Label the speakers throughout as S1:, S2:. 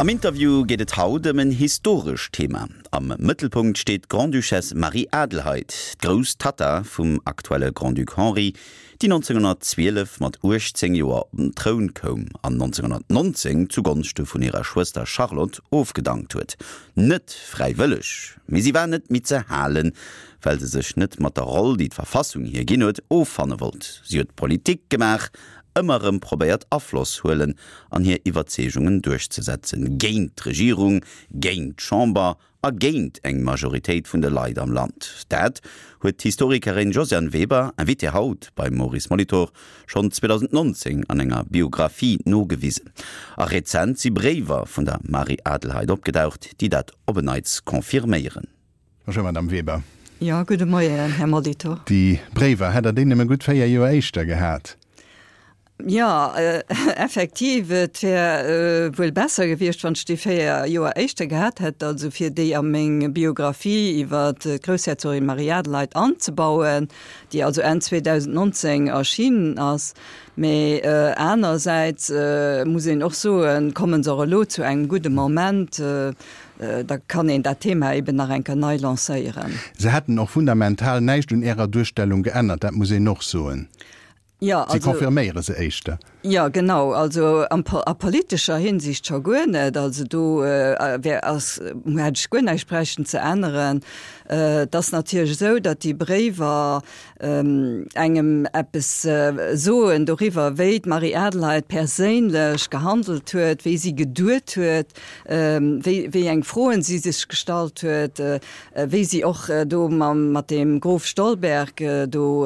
S1: Am Interview geet et haut ëm en historescht Thema. Am Mëttelpunkt steet d'Grande-Duchesse Marie-Adelheid, d'grouss Tatta vum aktuelle Grand-Duc Henri, déi 1912 mat 18 Joer op den Troun koum an 1919 zu Gonschte vun hirer Schwëster Charlotte ofgedankt huet. Net fräiwëlleg, mee si war net méi ze halen, well se sech net mat der Roll, déi d'Verfassung hir ginn huet, offanne wollt. Si huet Politik gemaach, ëmmer erëm probéiert Afloss huelen an hir Iwwerzeegungen duerchzesetzen, géint d'Regierung, géint d'Chamber a géint eng Majoritéit vun de Leit am Land. Dat huet d'Historikerin Josiane Weber, Invitée haut beim Maurice Molitor, schonn 2019 an enger Biographie nogewisen. A rezent si Bréiwer vun der Marie-Adelheid opgedaucht, déi dat op en Neits confirméieren.
S2: Bonjour Madame Weber.
S3: Jo, gudde Moien, Här Molitor.
S2: Déi Bréiwer, hätt Der déi nëmme gutt 4 Joer éischter gehat?
S3: Jo, effektiv, et wär wuel besser gewiescht, wann ech déi 4 Joer éischter gehat hätt, also fir déi a meng Biographie iwwer d'Groussherzogin Marie-Adelheid anzebauen, déi also Enn 2019 erschienen ass. Mee anersäits muss een och soen, komme se och elo zu engem gudde Moment, da kann een dat Thema eben nach eng Kéier nei lancéieren.
S2: Se hätten och fundamental näischt un Ärer Duerstellung geännert, dat muss een och soen.
S3: Jo,
S2: Si confirméiere se éischter.
S3: Jo, genau. Also a politescher Hinsicht scho guer net. Also do wär, ass, hätt ech guer näischt bräichten ze änneren. Et ass natierlech esou, datt déi Bréiwer engem eppes soen doriwwer, wéi d'Marie-Adelheid perséinlech gehandelt huet, wéi si geduet huet, wéi, wéi eng Froen si sech gestallt huet, wéi si och do mam, mat deem Grof Stolberg do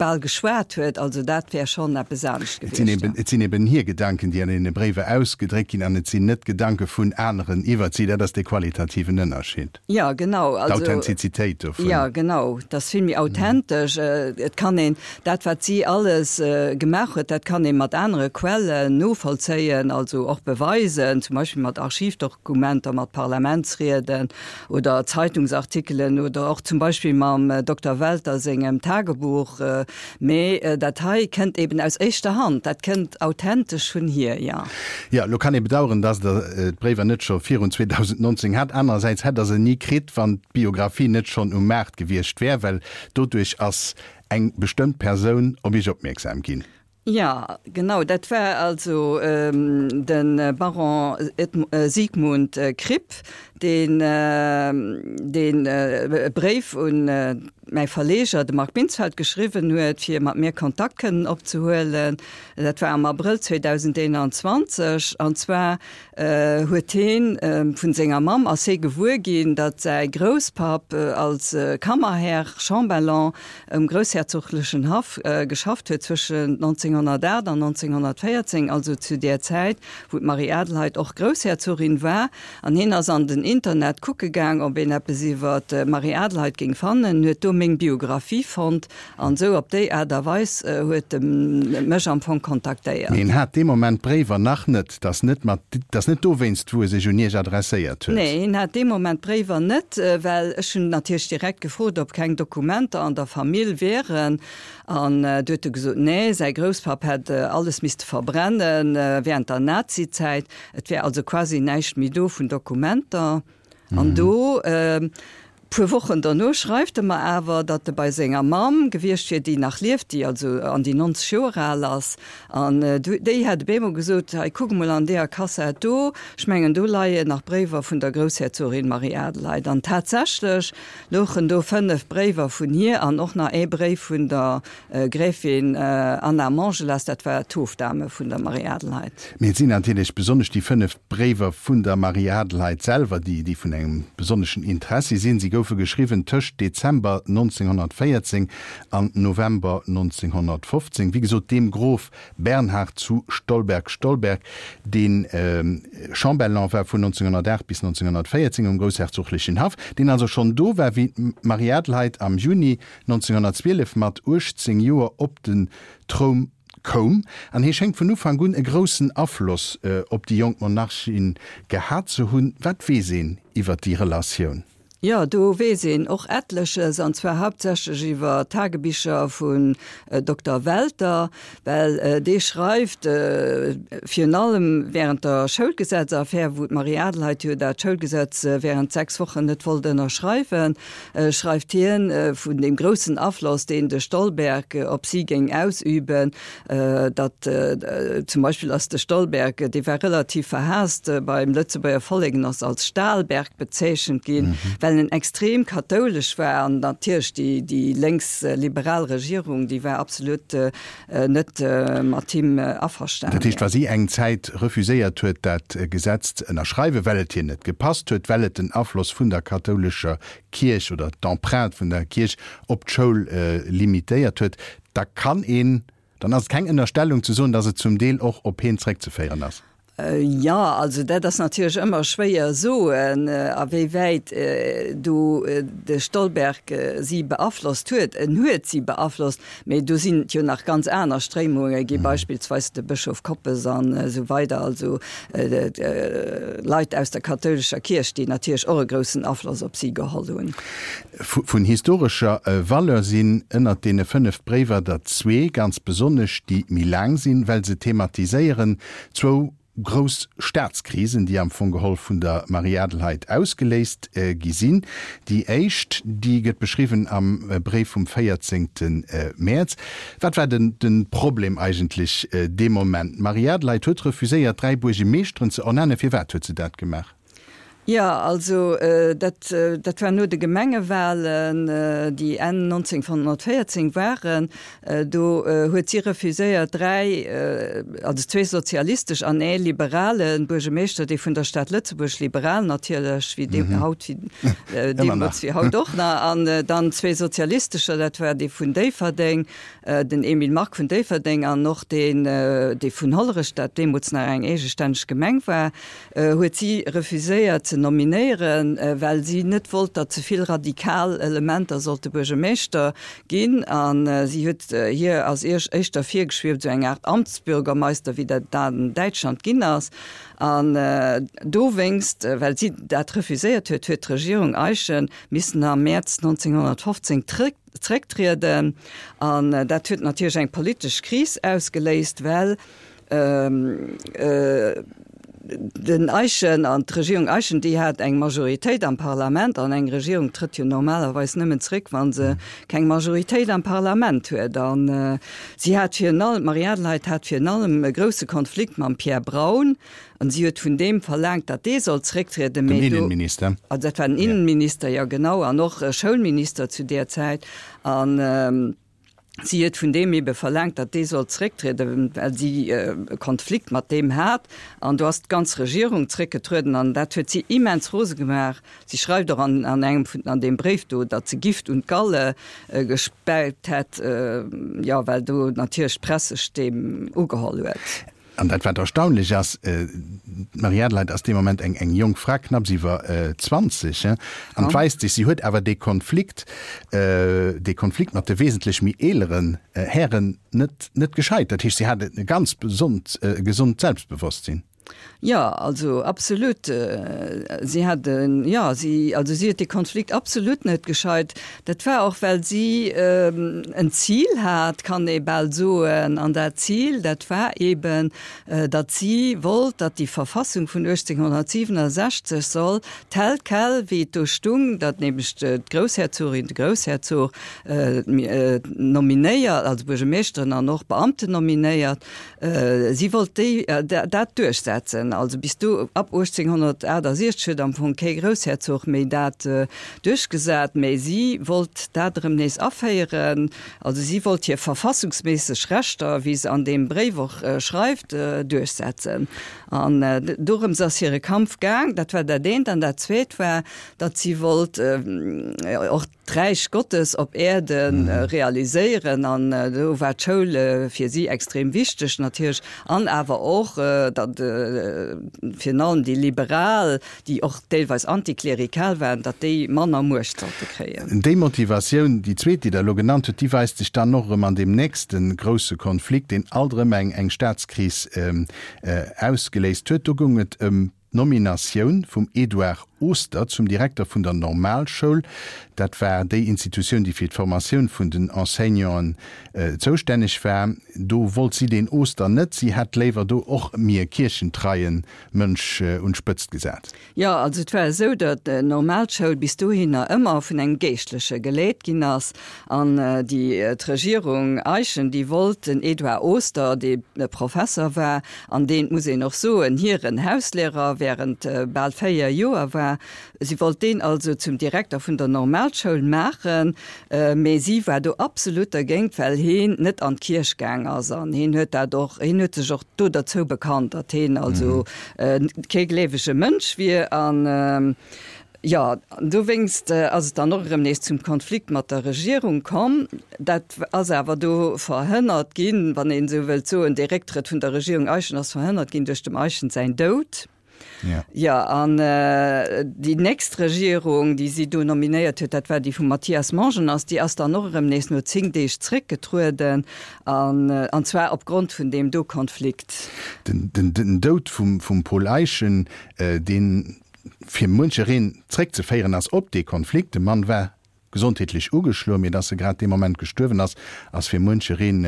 S3: bal geschwat huet. Also dat wär schonn eppes anescht
S2: Et sinn gewiescht, eben, et sinn eben hir Gedanken, déi an deene Bréiwer ausgedréckt ginn, an et sinn net Gedanke vun aneren iwwert si. Dat ass dee qualitativen Ënnerscheed.
S3: Jo, genau.
S2: Also, D'Authentizitéit dovun.
S3: Jo, genau. Dat ass vill méi authentesch. Et kann een dat, wat si alles gemaach huet, dat kann ee mat anere Quellen novollzéien, also och beweisen, zum Beispill mat Archivdokumenter, mat Parlamentsrieden oder Zeitungsartikelen oder och zum Beispill mam Dokter Welter sengem Tagebuch. Mee dat hei kënnt eben aus éischter Hand, dat kënnt authentesch vun hir, jo.
S2: Jo, elo kann ee bedauern, dass Der d'Bréiwer net scho virun 2019 hat. Anerersäits hätt Der se ni kritt, wann d'Biographie net schonn um Maart gewiescht wär, well doduerch ass eng bestëmmt Persoun op Iech opmierksam ginn.
S3: Jo, genau, dat war also de Baron Sigmund Kripp, deen deen e Bréif un mäi Verleger, de Marc Binsfeld, geschriwwen huet, fir mat mir Kontakt kënnen opzehuelen. Dat war am Abrëll 2021. An zwar huet heen vun senger Mamm ass hee gewuer ginn, datt säi Grousspapp als Kammerherr, Chambellan, um groussherzoglechen Haff geschafft huet zwëschen 1908 an 1914, also zu där Zäit, wou d'Marie-Adelheid och Groussherzogin war. An heen ass an den Internet kucke gaang, ob een eppes iwwer d'Marie-Adelheid géing fannen, huet do meng Biographie fonnt An esou op déi Aart a Weis huet e mech am Fong kontaktéiert.
S2: Mee en hat dee Moment d'Bréiwer nach net. 't ass net mat, 't ass net dowéinst, wou e sech un Iech adresséiert huet.
S3: Nee, hien hat dee Moment d'Bréiwer net, well ech hunn natierlech direkt gefrot, ob keng Dokumenter an der Famill wieren. An du huet e gesot, nee, säi Grousspapp hätt alles misste verbrenne während der Nazizäit. Et wär also quasi näischt méi do vun Dokumenter. An do Puer Wochen derno schreift e mer awer, datt e bei senger Mamm gewiescht wier, déi nach lieft, déi also an déi 90 Joer al ass. An déi hätt op eemol gesot, Hei, kuck emol an deeër Kassett do, ech mengen, do leien nach Bréiwer vun der Groussherzogin Marie-Adelheid. An tatsächlech louchen do 5 Bréiwer vun hir an och nach ee Bréif vun der Gräfin Anna Montgelas, dat war d'Hofdame vun der Marie-Adelheid.
S2: Mee et sinn natierlech besonnesch déi 5 Bréiwer vun der Marie-Adelheid selwer, déi déi vun engem besonneschen Interessi sinn. Si goufe geschriwwen tëscht Dezember 1914 an November 1915, wéi gesot dem Grof Bernhard zu Stolberg-Stolberg, dee Chambellan war vun 1908 bis 1914 um groussherzoglechen Haff, deen also schonn do war, wéi d'Marie-Adelheid am Juni 1912 mat 18 Joer op den Troum koum, an hie schéngt vun Ufank un e groussen Afloss op déi jonk Monarchin gehat ze hunn. Wat weess een iwwer déi Relatioun?
S3: Jo, do weess een och etleches, an zwar hauptsächlech iwwer Tagebicher vun Dokter Welter, well dee schreift virun allem während der Schoulgesetzaffär, wou d'Marie-Adelheid jo dat Schoulgesetz während 6 Wochen net wollt ënnerschreiwen, schreift hien vun deem groussen Afloss, deen de Stolberg op si géing ausüben, datt zum Beispill ass de Stolberg, dee war relativ verhaasst beim Lëtzebuerger Vollek en ass als Stahlberg bezeechent ginn, well en extrem kathoulesch war an natierlech déi déi lénks-liberal Regierung, déi war absolut net mat him averstanen.
S2: Dat heescht, wa si eng Zäit refuséiert huet, dat Gesetz ze ënnerschreiwen, well et hir net gepasst huet, well et den Afloss vun der kathoulescher Kierch oder d'Empreinte vun der Kierch op d'Schoul limitéiert huet, da kann een, dann ass et keng Ënnerstellung ze soen, datt et zum Deel och op heen zréckzeféieren ass.
S3: Jo, also dat ass natierlech ëmmer schwéier soen, a wéi wäit do de Stolberg si beaflosst huet. En huet si beaflosst, mee do sinn et jo nach ganz aner Stréimunge gi, beispillsweis de Bëschof Koppes an esou weider, also Leit aus der kathoulescher Kierch, déi natierlech och e groussen Afloss op si geholl hunn.
S2: Vun historescher Valeur sinn ënnert deene 5 Bréiwer der zwee ganz besonnesch, déi méi laang sinn, well se thematiséieren zwou grouss Staatskrisen, déi am Fong geholl vun der Marie-Adelheid ausgeléist gi sinn. Déi éischt, déi gëtt beschriwwen am Bréif vum 14. Mäerz. Wat war den de Problem eigentlech dee Moment? D'Marie-Adelheid huet refuséiert, 3 Buergemeeschteren ze ernennen. Firwat huet se dat gemaach?
S3: Jo, also dat, dat war no de Gemengewahlen, déi Enn 1914 waren. Do huet si refuséiert, dräi, also zwee sozialistesch an ee liberale Buergemeeschter, dee vun der Stad Lëtzebuerg, liberal natierlech, wéi dee haut, wéi deemools wéi haut och nach, an dann zwee sozialistescher, dat war dee vun Déifferdeng, den Emile Mark vun Déifferdeng an och deen, dee vun Hollerech, dat deemools nach eng eegestänneg Gemeng war. huet si refuséiert ze nominéieren, well si net wollt, datt ze vill radikal Elementer sollte Buergermeeschter ginn. A si huet hir ass éischter virgeschwieft, esou eng Aart Amtsbürgermeister, wéi dat an Däitschland ginn ass. An dowéinst, well si dat refuséiert huet, huet d'Regierung Eyschen missen am Mäerz 1915 zrécktrieden. An dat huet natierlech eng politesch Kris ausgeléist, well Den Eyschen an d'Regierung Eyschen, déi hat eng Majoritéit am Parlament, an eng Regierung trëtt jo normalerweis nëmmen zréck, wa se keng Majoritéit am Parlament huet. An si hat virun allem, d'Marie-Adelheid hat virun allem e grousse Konflikt mam Pierre Braun, an si huet vun deem verlaangt, datt dee sollt zrécktrieden.
S2: Den Innenminister.
S3: Also dat war den Innenminister, jo genau, an och Schoulminister zu där Zäit. An. Si huet vun deem ebe verlaangt, datt dee sollt zrécktrieden, well si e Konflikt mat deem hat. An do ass d'ganz Regierung zréckgetrueden an dat huet si immens rose gemaach. Si schreift och an an engem vun an deem Bréif do, datt se Gift un d'Galle gespäit hätt, jo, well do natierlech d'Press sech deem ugeholl huet.
S2: An dat wat erstaunlech ass, d'Marie-Adelheid ass dee Moment eng eng jonk Fra, knapps iwwer 20, an et weist sech, si huet awer dee Konflikt, dee Konflikt mat de wesentlech méi eeleren Hären net net gescheit. Dat heescht, si hat e ganz besond gesond Selbstbewosstsinn.
S3: Jo, also absolut. Si hat en, jo, si, also si huet dee Konflikt absolut net gescheit. Dat war och, well si en Zil hat, kann ee bal soen. An dat Zil, dat war eben, datt si wollt, datt déi Verfassung vun 1867 soll tel quel, wéi et do stung, datt nämlech d'Groussherzogin, de Groussherzog nominéiert, also Buergermeeschteren an och Beamten nominéiert, Si wollt déi, dat duerchsetzen. Also bis do, ab 1868 huet am Fong kee Groussherzog méi dat duerchgesat, mä si wollt dat erëm nees aféieren. Also si wollt hir verfassungsméisseg Rechter, wéi se an deem Bréif och schreift, duerchsetzen. An dorëms ass hire Kampf gaang. Dat war dat eent. An dat zweet war, datt si wollt och, d'Räich Gottes op Äerde realiséieren an do war d'Schoul fir si extrem wichteg natierlech an awer och, datt virun allem déi Liberal, déi och deelweis antiklerikal waren, datt déi manner Muecht sollte kréien.
S2: Déi Motivatioun, déi zweet, déi Der elo genannt hutt, déi weist sech dann och erëm an deem nächste grousse Konflikt, deen alt erëm eng Staatskris ausgeléist huet. Do goung et ëm d'Nominatioun vum Edouard. Oster zum Direkter vun der Normalschoul. Dat war déi Institutioun, déi fir d'Formatioun vun den Enseignanten zoustänneg war. Do wollt si deen Oster net. Si hätt léiwer do och méi e kierchentreie Mënsch un d'Spëtzt gesat.
S3: Jo, also et war esou, datt d'Normalschoul bis dohinner ëmmer vun engem Geeschtleche geleet ginn ass. An déi, d'Regierung Eyschen, déi wollt den Edouard Oster, dee Professer war an deen, et muss een och soen, hiren Hauslehrer während bal 4 Joer war, si wollt deen also zum Direkter vun der Normalschoul maachen. Mee si war do absolut dergéint, well heen net an d'Kierch gaang ass. An heen huet dat och, heen huet sech och do derzou bekannt, datt heen also kee gleewege Mënsch wier. An jo, dowéinst ass et dann och erëm nees zum Konflikt mat der Regierung komm. Dat ass awer do verhënnert ginn, wann een esou wëllt soen, dee Récktrëtt vun der Regierung Eyschen ass verhënnert ginn duerch dem Eyschen säin Doud.
S2: Ja.
S3: Jo, an déi nächst Regierung, déi si do nominéiert huet, dat war déi vum Mathias Mongenast, déi ass dann och erëm nees no 10 Deeg zréckgetrueden, an, an zwar opgrond vun deem do Konflikt.
S2: Den, den, den Doud vum, vum Paul Eyschen, deen fir muenchereen zréckzeféieren ass op dee Konflikt, de Mann war gesondheetlech ugeschloen, mee dass e grad dee Moment gestuerwen ass, ass fir muenchereen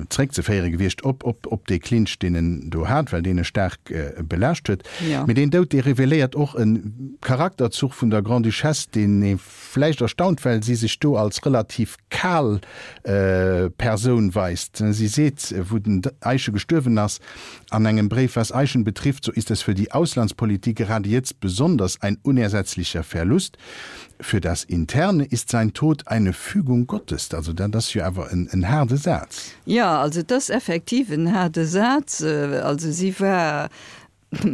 S2: zeréckzeféiere gewiescht op op dee Clinch, deen en do hat, well deen e staark belaascht huet. Mee deen Doud, dee reveléiert och e Charakterzuch vun der Grande-Duchesse, deen ee vläicht erstaunt, well si sech do als relativ kal Persoun weist. Si seet, wou den Eyschen gestuerwen ass, an engem Bréif, Was Eyschen betrifft, so ist es für die Auslandspolitik gerade jetzt besonders ein unersetzlicher Verlust. Für das Interne ist sein Tod eine Fügung Gottes. Also dat ass jo awer en haarde Saz.
S3: Jo, also et ass effektiv en haarde Saz. Also si war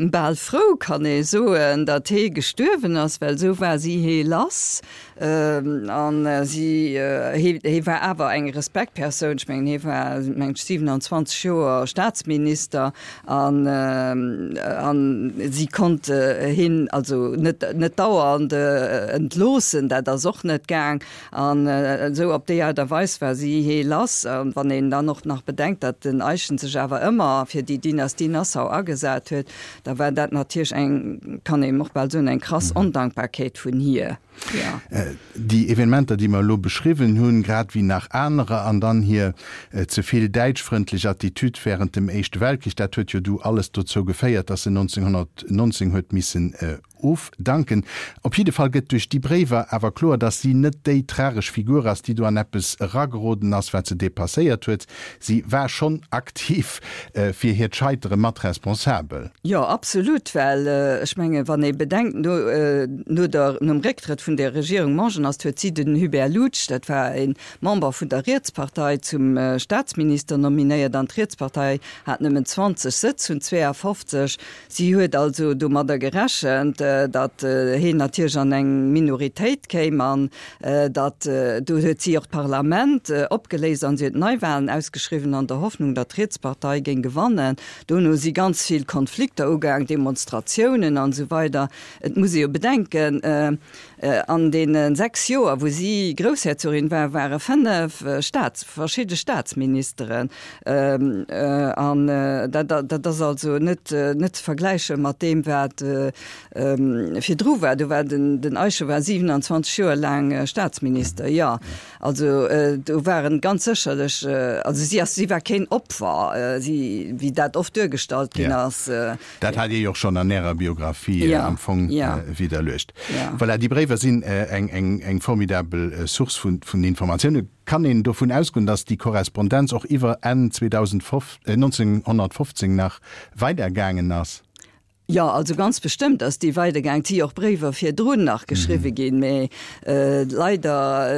S3: bal frou, kann ee soen, datt hee gestuerwen ass, well esou war si hee lass. An si, hee, hee war awer eng Respektpersoun. Ech mengen, hee war, meng ech, 27 Joer Staatsminister. An, an si konnt hien also net, net dauernd entloossen, dat ass och net gaang. An esou op déi Aart a Weis war si hee lass. An wann een dann och nach bedenkt, datt den Eyschen sech awer ëmmer fir déi Dynastie Nassau agesat huet, da war dat natierlech eng, kann een och bal soen, eng krass Ondankbarkeet vun hir.
S2: Déi Evenementer, déi mer elo beschriwwen hunn, grad wéi nach anerer, an dann hir ze vill däitschfrëndlech Attitude während dem Éischte Weltkrich, dat huet jo du alles dozou geféiert, datt se 1919 huet missen ofdanken. Op jidde Fall gëtt duerch déi Bréiwer awer kloer, datt si net déi tragesch Figur ass, déi do an eppes erageroden ass, wat se depasséiert huet. Si war schonn aktiv fir hiert Scheitere mat responsabel.
S3: Jo, absolut, well ech mengen, wann ee bedenkt, no, no der, nom Récktrëtt vun der Regierung Mongenast huet si den Hubert Loutsch, dat war e Member vun der Rietspartei, zum Staatsminister nominéiert an d'Rietspartei hat nëmmen 20 Sëtz vun 52. Si huet also domadder gerechent, datt heen natierlech an eng Minoritéit kéim an datt, do huet si och d'Parlament opgeléist an si huet Neiwahlen ausgeschriwwen an der Hoffnung, datt d'Rietspartei géing gewannen. Dono si ganz vill Konflikter ugaang, Demonstratiounen an esou weider. Et muss ee jo bedenken, An deene 6 Joer, wou si Groussherzogin war, ware 5 Staats, verschidde Staatsministeren. An dat, dat ass also net, net ze vergläiche mat deem, wat virdru war. Do war den, den Eicher war 27 Joer laang Staatsminister, jo. Also do waren ganz sécherlech, also si ass, si war keen Opfer, si, wéi dat oft duergestallt ginn ass.
S2: Dat hat Dir jo och schonn an Ärer Biographie am Fong widderluecht. Voilà, déi Bréiwer sinn eng formidabel Source vun Informatiounen. Kann een dovun ausgoen, datt déi Korrespondenz och iwwer Enn 1915 nach weidergaangen ass?
S3: Jo, also ganz bestëmmt ass déi weidergaang. Et si jo och Bréiwer virdrun nach geschriwwe ginn, mä leider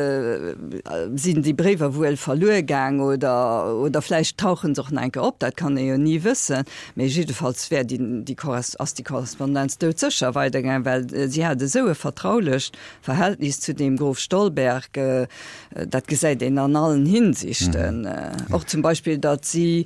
S3: sinn déi Bréiwer wuel verluer gaang oder, oder vläicht tauche se och nach eng Kéier op, dat kann ee jo ni wëssen. Mee jiddefalls wär déi, déi Korres, ass déi Korrespondenz doudsécher weidergaang, well si hat esou e vertraulecht Verhältnis zu deem Grof Stolberg, dat gesäit een an allen Hinsichten. Och zum Beispill, datt si,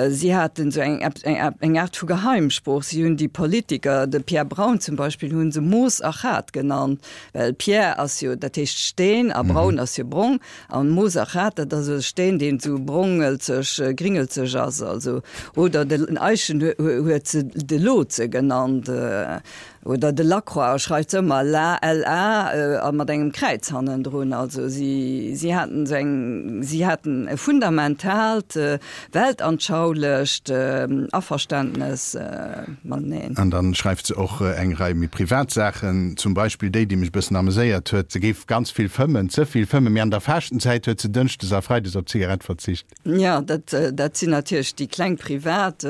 S3: si haten esou eng, eng, eng Aart vu Geheimsprooch. Si hunn déi Politiker, de Pierre Braun zum Beispill, hu se Moos a Chat genannt, well Pierre ass jo, dat heescht Steen a Braun ass jo brong. An Moosachat, dat ass e Steen, deen esou brongelzeg, gringelzeg ass, also, oder den Eischen huet se de Lotse genannt. Oder de Lacroix schreift se ëmmer la, LA, a mat engem Kräiz hannendrun. Also si, si haten esou eng, si haten e fundamentaalt weltanschaulecht Averständnes mateneen.
S2: An dann schreift se och eng Rei méi privat Saachen, zum Beispill déi, déi mech e bëssen ameséiert huet, Se géif ganz vill fëmmen, ze vill fëmmen, mee an der Faaschtenzäit huet se dënschdes a freides op d'Zigarett verzicht.
S3: Jo, dat, dat sinn natierlech déi kleng privat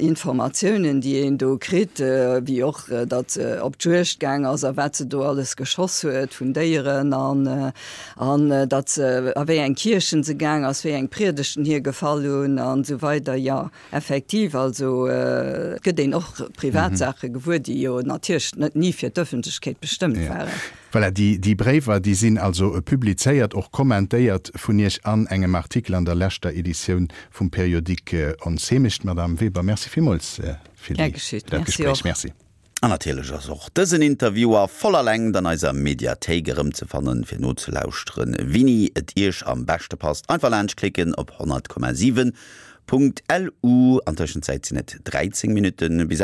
S3: Informatiounen, déi een do kritt, wéi och, datt se op d'Juegd gaang ass a wat se do alles geschoss huet vun Déieren an, an datt se, a wéi eng Kierchen se gaang ass, wéi eng Priedegten hir gefall hunn an esou weider. Jo, effektiv, also et gëtt een och privat Saache gewuer, déi jo natierlech net ni fir d'Ëffentlechkeet bestëmmt waren.
S2: Voilà, déi, déi Bréiwer, déi sinn also publizéiert, och kommentéiert vun Iech an engem Artikel an der leschter Editioun vum Periodique Ons Heemecht. Madame Weber, merci villmools fir
S3: déi, fir dat
S2: Gespréich. Merci.
S1: An natierlech ass och dësen Interview a voller Längt an eiser Mediathéik erëmzefannen, fir nozelauschteren, wini et Iech am beschte passt. Einfach laanschtklicken op 100,7.lu. An Tëschenzäit sinn et 13 Minutten bis.